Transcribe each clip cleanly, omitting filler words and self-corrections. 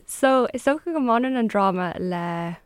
So, is dócha go mbaineann an dráma le,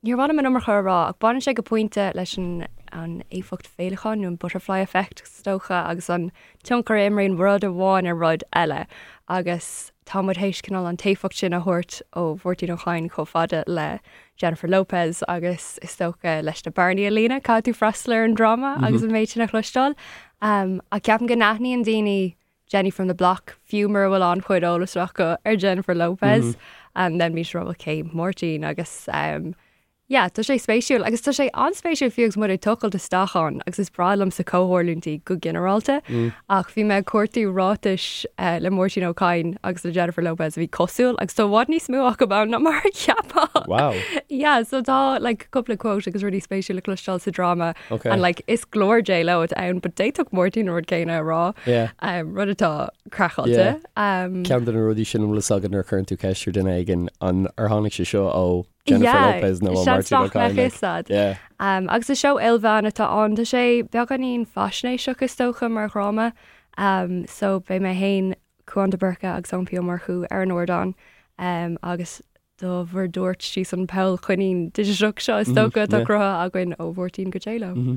níor mhaith liom an iomarca a rá, ach baineann sé go pointe leis an an éifeacht féileacáin nó an butterfly effect is dócha agus an tionchar a imríonn rud amháin ar rud eile agus tá muid théis cineál an t-éifeacht sin a thabhairt ó Mháirtín Ó Cadhain chomh fada le Jennifer Lopez agus is dócha leis na bearnaí a líonadh caithfidh tú freastal ar an dráma agus an méid sin a chloisteáil. Ach ceapaim go n-aithníonn daoine Jenny from the Block, fiú mura bhfuil an-chuid eolas acu ar Jennifer Lopez. And then bíonn siad ag rá cé Máirtín agus um, yeah, tá sé spéisiúil agus tá sé an-spéisiúil fiú agus muid ag tochailt isteach ann agus is breá liomsa comhtharlúintí go ginearálta ach bhí mé ag cuartú ráitis uh, le Máirtín Ó Cadhain agus le Jennifer Lopez a bhí cosúil agus tá i bhfad níos mó acu ann ná mar a cheapfá. Wow. Yeah, so tá like cúpla quote agus rudaí spéisiúla le cloisteáil sa dráma Ok. And like is glór J Lo atá ann, but d'fhéadfadh Máirtín an rud céanna a rá. Yeah. Um, rud atá craiceáilte. Yeah. Um, Ceann de na rudaí sin an bhfuil a fhios agat nuair a chuireann tú ceist ar duine éigin an ar tháinig sé seo ó Jennifer yeah, Lopez nó ó seans Máirtín Ó nach mbeadh Cadhain, fhios like. a'd. Yeah. Um, agus is seó ilmheán atá ann, tá sé beagáinín faisnéiseach is dócha mar dhráma. Um, so beidh mé féin, Cúán de Búrca agus Eoin P. Ó Murchú ar an ardán um, agus do bhur dtabhairt síos an poll coinín digiteach seo is dócha atá cruthaithe againn ó Mháirtín go J-Lo.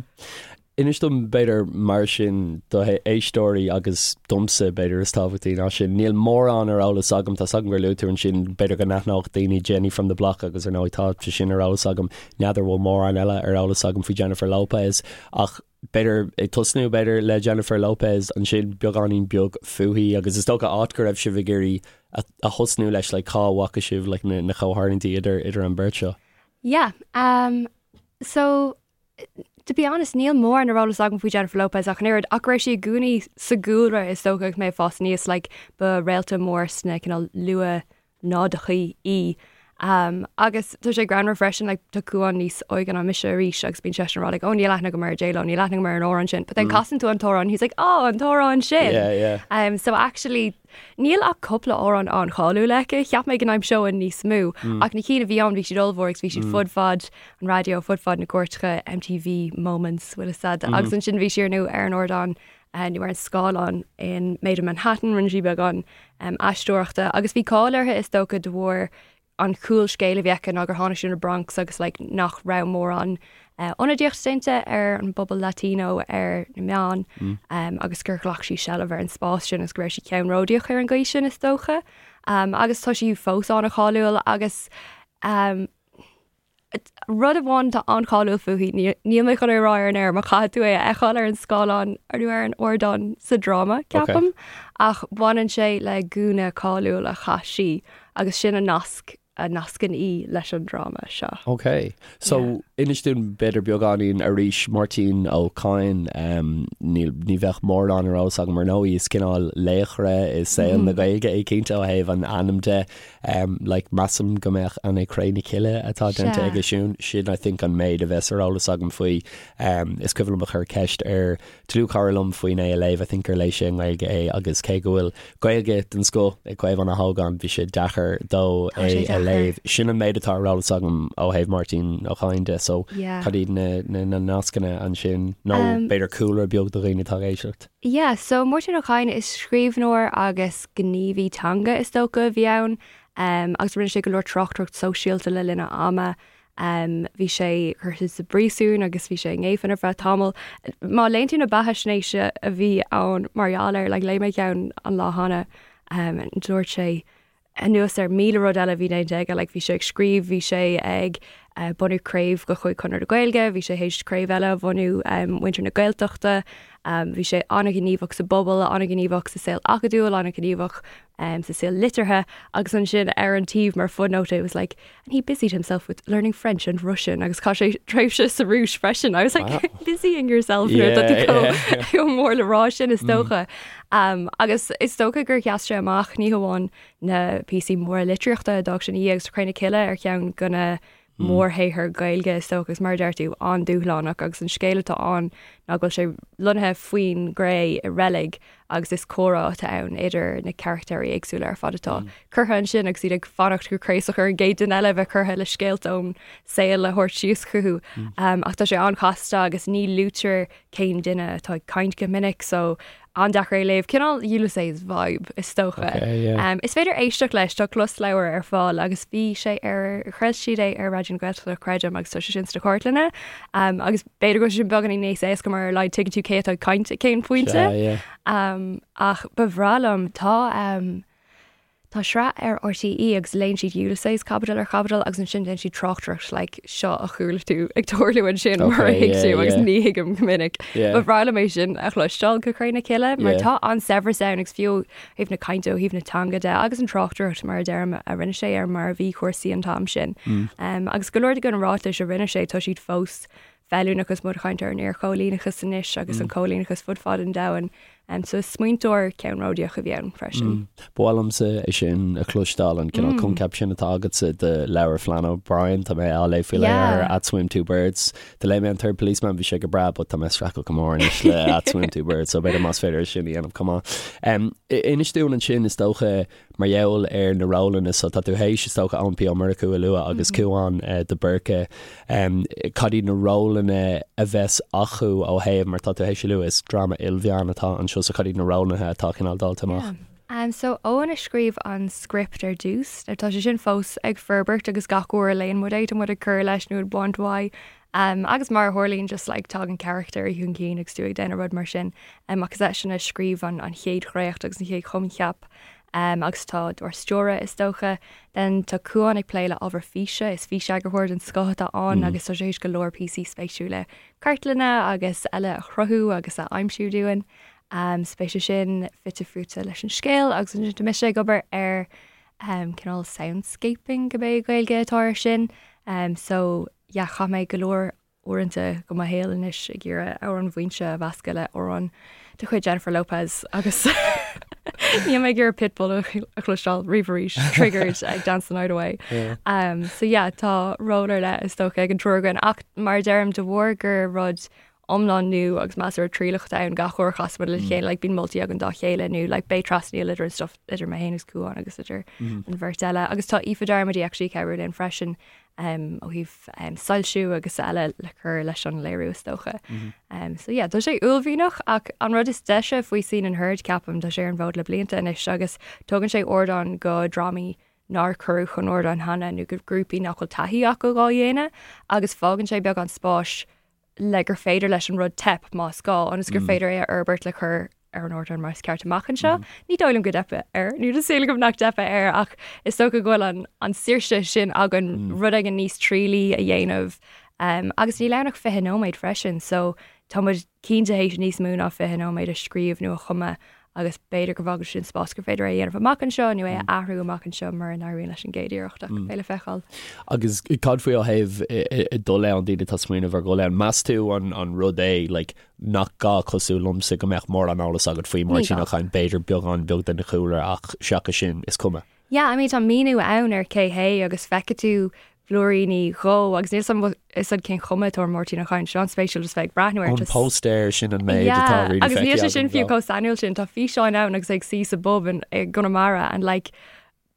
Inis dom b'fhéidir mar sin do éisteoirí agus domsa b'fhéidir is tábhachtaí ná sin, níl mórán ar eolas agam, tá 's agam gur luaigh tú ansin b'fhéidir go n-aithneodh daoine Jenny from the Block agus ar ndóigh tá sé sin ar eolas agam, n'fheadar bhfuil mórán eile ar eolas agam faoi Jennifer Lopez ach b'fhéidir ag tosnú b'fhéidir le Jennifer Lopez ansin beagáinín beag fúithi agus is dócha áit go raibh sibh ag iarraidh a thosnú leis like cá bhfaca sibh like na na comhtharlúintí idir idir an bheirt seo? Yeah um so to be honest níl mórán ar eolas agam faoi Jennifer Lopez ach an oiread ach go raibh sí i gcónaí sa gcúlra is dócha agus mé ag fás aníos like ba réalta mór sna cineál luath náideachaí í. Agus tá sé greannmhar freisin, like, tá Cúán níos óige ná mise arís agus bíonn seisean ag rá like, oh níl aithne agam ar J-Lo, níl aithne agam ar an amhrán sin. But then casann tú an t-amhrán, he's like, oh an t-amhrán sin! Yeah, yeah. So actually, níl ach cúpla amhrán an-cháiliúil aici, cheap mé go n-aimseoinn níos mó, ach na cinn a bhí ann bhí siad ollmhór agus bhí siad fud fad an raidió, fud fad na gcúirteacha, MTV moments, bhfuil fhios a'd. Agus ansin bhí sí ar ndóigh ar an ardán nó ar an scáileán in Maid in Manhattan, rinne sí beagán aisteoireachta agus bhí cáil uirthi is dócha de bharr an chúlscéal a bhí aici ná gur tháinig sí ó na Bronx agus like nach raibh mórán ionadaíocht déanta ar an bpobal Latino ar na meáin agus gur ghlac sí seilbh ar an spás sin agus go raibh sí ceannródaíoch ar an gcaoi sin is dócha. Agus tá sí fós an-cháiliúil agus Rud amháin atá an-cháiliúil fúithi, níl mé chun é a rá ar an aer, mar caithfidh tú é a fheiceáil ar an scáileán nó ar an ardán sa dráma, ceapaim, ach baineann sé le gúna cáiliúil a chaith sí agus sin an nasc a nascann í leis an dráma seo. Ok. So, inis dúinn b'fhéidir beagáinín arís, Máirtín Ó Cadhain, níl, ní bheadh mórán ar eolas agam ar ndóigh, is cineál laochra i saol na Gaeilge é cinnte ó thaobh an ainm de. Like, measaim go mbeadh an é Cré na Cille atá déanta aige sin, sin I think an méid a bheas ar eolas agam faoi. Is cuimhin liom a chur ceist ar dlúthchara liom faoin é a léamh, I think gur léigh sé i nGaeilge é agus cé go bhfuil Gaeilge den scoth ag Caomhán Ó hÓgáin, bhí sé deacair dó é a léamh. Sin an méid atá ar eolas agam ó thaobh Máirtín Ó Cadhain de, so cad iad na nascanna ansin nó b'fhéidir cúlra beag do dhaoine atá ag éisteacht? Yeah, so Máirtín Ó Cadhain, is scríbhneoir agus gníomhaí teanga is dócha a bhí ann agus rinne sé go leor tráchtaireacht sóisialta le linn a ama. Bhí sé curtha sa bpríosún agus bhí sé i ngéibheann ar feadh tamaill. Má léann tú na beathaisnéisí a bhí ann mar gheall air, like léigh mé ceann an lá cheana, dúirt sé anuas ar 1,000 rud eile a bhí déanta aige, like bhí sé ag scríobh, bhí sé ag bunú craobh de chuid Chonradh na Gaeilge, bhí sé théis craobh eile a bhunú Muintir na Gaeltachta, bhí sé an-ghníomhach sa bpobal, an-ghníomhach sa saol acadúil, an-ghníomhach sa saol liteartha agus ansin ar an taobh mar footnote it was like and he busied himself with learning French and Russian agus chaith sé tréimhse sa Rúis freisin. I was like, wow. busying yourself nuair atá tú chomh mór le rá sin is dócha. Agus is dócha gur sheas sé amach ní hamháin na píosaí móra litríochta a d'fhág sé ina dhiaidh agus Cré na Cille ar cheann de na mórshaothair Gaeilge is dócha agus mar a deir tú an-dúshlánach agus an scéal atá ann ná go bhfuil sé lonnaithe faoin gcré i reilig agus is comhrá atá ann idir na carachtéirí éagsúla ar fad atá curtha ansin agus iad ag fanacht go craosach ar an gcéad duine eile a bheith curtha le scéalta ón saol a thabhairt síos chucu. Ach tá sé an-chasta agus ní luaitear cén duine atá ag caint go minic so. An-deacair é a léamh, cineál Ulysses vibe is dócha. Okay, yeah. Um, is féidir éisteacht leis, tá closleabhar ar fáil agus bhí sé ar chraol siad é ar Raidió na Gaeltachta creidim agus tá sé sin sna cartlanna. Um, agus b'fhéidir go bhfuil sé sin beagáinín níos éasca mar ar a laghad tuigeann tú cé atá ag caint ag cén pointe. Sea, yeah. Um, ach ba bhreá liom, tá um, Tá sraith ar RTÉ agus léann siad Ulysses caibidil ar chaibidil agus ansin déanann siad tráchtaireacht like seo a chuala tú ag tarlú ansin mar a thuig tú agus ní thuigim go minic. Ba bhreá liom é sin a chloisteáil go cré na cille mar tá an-saibhreas ann agus fiú ó thaobh na cainte ó thaobh na teanga de agus an tráchtaireacht mar a deirim a rinne sé ar mar a bhí cúrsaí an t-am sin. Agus go leor de na ráitis a rinne sé tá siad fós feiliúnach agus muid ag caint ar an iarchoilíneachas anois agus an coilíneachas fud fad an domhain. So is smaointeoir ceannródaíoch a bhí ann freisin. Ba mhaith liomsa é sin a chloisteáil, an cineál coincheap sin atá agatsa de leabhar Flann O'Brien, tá mé á léamh faoi láthair, At Swim Two Birds. Do léigh mé an Third Policeman, bhí sé go breá, but tá mé ag streachailt go mór anois le At Swim Two Birds, so b'fhéidir más féidir é sin a dhéanamh chomh maith. Inis dúinn ansin, is dócha, Mar gheall ar na rólanna so tá tú théis, is dócha, Eoin P. Ó Murchú a lua agus Cúán de Búrca. Cad iad na rólanna a bheas acu ó thaobh, mar tá tú théis a lua, is dráma ilmheán atá anseo so cad iad na rólanna atá cineál dáilte amach? Yeah. So Eoin a scríobh an script ar dtús. Tá sé sin fós ag forbairt agus gach uair a léann muid é tá muid ag cur leis nó ag baint uaidh. Agus mar a tharlaíonn just like tagann carachtair chun cinn agus tú ag déanamh rud mar sin. Ach is eisean a scríobh an chéad dhréacht agus an chéad choincheap agus atá dár stiúradh is dócha. Then tá Cúán ag plé le ábhar físe, is físeagarthóir den scoth atá ann agus tá sé théis go leor píosaí spéisiúla cartlainne agus eile a chruthú agus a aimsiú dúinn. So beidh sé sin fite fuaite leis an scéal agus ansin tá mise ag obair ar cineál soundscaping cibé Gaeilge atá air sin. So yeah chaith mé go leor uaireanta de mo shaol anois ag iarraidh amhrán Mhaínse a mheascadh le amhrán de chuid Jennifer Lopez agus níl mé ag iarraidh Pitbull a chloisteáil riamh arís, triggered ag Dance the Night Away. Um, so yeah, tá ról ar leith is dócha ag an triúr againn ach mar a deirim de bharr gur rud iomlán nua agus measartha trialach atá ann gach uair a chasann muid le chéile, like, bíonn moltaí againn dá chéile nó like, beidh trasnaíl idir an stuff idir mé féin agus Cúán agus idir an bheirt eile. Agus tá Aoife Darmody actually ag cabhrú linn freisin ó thaobh soilsiú agus eile le cur leis an léiriú is dócha. So yeah, tá sé uaillmhianach ach an rud is deise faoi Scene and Heard ceapaim, tá sé ar an bhfód le blianta anois agus tugann sé ardán go drámaí nár cuireadh chun ardáin cheana nó go grúpaí nach bhfuil taithí acu dhá dhéanamh agus fágann sé beagán spáis le gur féidir leis an rud teip más gá, ionas gur féidir é a fhorbairt le cur ar an ardán mar is ceart amach anseo. Ní dóigh liom go dteipfidh air, nó tá súil agam nach dteipfidh air ach is dócha go bhfuil an, an saoirse sin againn rud éigin níos trialaí a dhéanamh. Um, agus níl ann ach 20 nóiméad freisin, so tá muid cinnte théis níos mó ná 20 nóiméad a scríobh nó a chumadh agus b'fhéidir go bhfágann sin spás gur féidir é a dhéanamh amach anseo nó é a athrú amach anseo mura n-éiríonn leis an gcéad iarracht ach beidh le feiceáil. Agus cad faoi ó thaobh dul ann, daoine atá ag smaoineamh ar dhul ann, meas tú an an rud é like nach gá cosúil liomsa go mbeadh mórán eolas agat faoi Máirtín Ó Cadhain, b'fhéidir beagán beag den chúlra ach seachas sin is cuma. Yeah, I mean tá míniú ann ar cé hé agus feicfidh tú blúiríní dhó agus níl a fhios agam cén chuma atá ar Mháirtín Ó Cadhain, seo an-spéisiúil just bheith ag breathnú air. An póstaer sin an méid atá really feicthe agam. Agus níl sé sin fiú chomh sainiúil sin, tá físeáin ann agus é ag suí sa bpub i gConamara and like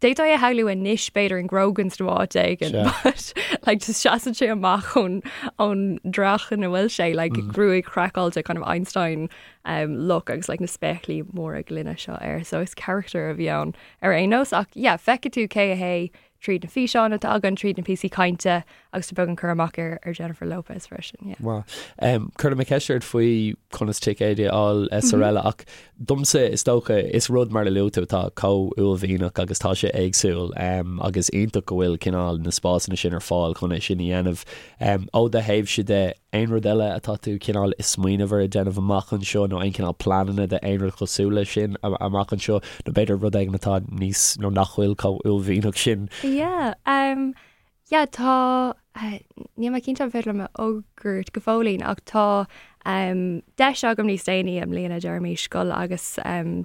d'fhéadfá é a shamhlú anois b'fhéidir in Grogan's nó áit éigin but like just seasann sé amach ón ón dreach ina bhfuil sé like gruaig chraiceáilte kind of Einstein um, look agus like na spéaclaí móra gloine seo air so is character a bhí ann ar aon nós ach yeah feicfidh tú cé hé tríd na físeáin atá againn, tríd na píosaí cainte agus tá beagán cur amach ar ar Jennifer Lopez freisin, yeah. Maith. Um, Cuirfidh mé ceist ort faoi conas ticéid a fháil is araile ach domsa is dócha is rud mar a luaigh tú atá chomh uaillmhianach agus tá sé éagsúil um, agus iontach go bhfuil cineál na spásanna sin ar fáil chun é sin a dhéanamh. Um, ó do thaobhse de, Aon rud eile atá tú cineál ag smaoineamh ar a déanamh amach anseo nó aon cineál pleananna de aon rud cosúil leis sin amach anseo nó b'fhéidir rud éigin atá níos nó nach bhfuil chomh uaillmhianach sin? Yeah, um, yeah, tá, níl mé cinnte an féidir liom a fhógairt go fóillín ach tá um, deis agam níos déanaí i mbliana deirimís dul agus um,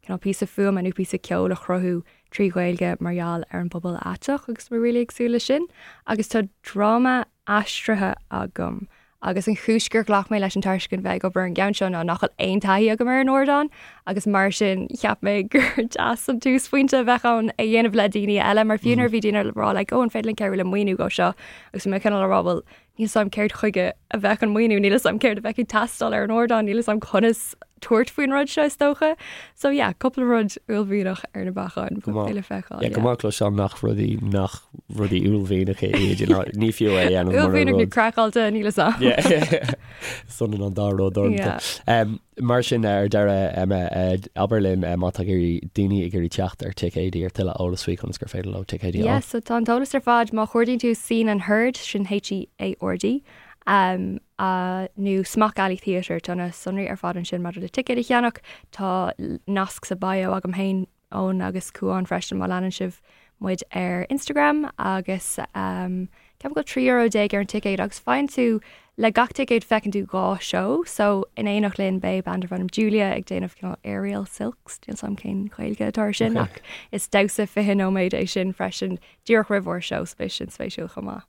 cineál píosa fuaime nó píosa ceoil a chruthú trí Ghaeilge mar gheall ar an bpobal aiteach agus tá mé really ag súil leis sin agus tá dráma aistrithe agam agus an chúis gur ghlac mé leis an tairiscint bheith ag obair ar an gceann seo ná nach bhfuil aon taithí agam ar an ardán agus mar sin cheap mé gur deas an túsphointe a bheadh ann é a dhéanamh le daoine eile mar fiú nuair a bhí daoine ag rá like oh an féidir linn cabhrú le maoiniú dhó seo agus bhí mé cineál ag rá bhuel níl 'fhios a'm céard chuige a bheadh an maoiniú níl 'fhios a'm céard a bheadh ag teastáil ar an ardán níl 'fhios a'm conas. tabhairt faoin rud seo is dócha. So yeah, cúpla rud uaillmhianach ar na bacáin Go maith. le feiceáil. Yeah, go maith cloisteáil nach rudaí nach rudaí uaillmhianacha iad, you know, ní fiú é a dhéanamh mura Uaillmhianach nó rud. craiceáilte, níl fhios a'm. Yeah. Is ionann an dá rud orm. Yeah. Um, mar sin ar deireadh Emma, eh, abair linn eh, má tá ag iarraidh daoine ag iarraidh teacht ar ticéidí ar tuilleadh eolas faoi conas gur féidir leo ticéidí a Yeah, fháil. so tá an t-eolas ar fad má chuardaíonn tú Scene and Heard, sin H-E-A-R-D, um, nó Smock Alley Theatre, tá na sonraí ar fad ansin maidir le ticéid a cheannach. Tá nasc sa bio agam féin, Eoin agus Cuán freisin má leanann sibh muid ar Instagram agus ceapaim go bhfuil €13 ar an ticéad agus faigheann tú le gach ticéad feiceann tú 2 seó so in éineacht linn beidh band darb ainm Julia ag déanamh cineál aerial silks, níl 's a'm cén Ghaeilge atá ar sin ach is damhsa 20 nóiméad é sin freisin díreach roimh ár seó so beidh sin spéisiúil chomh maith.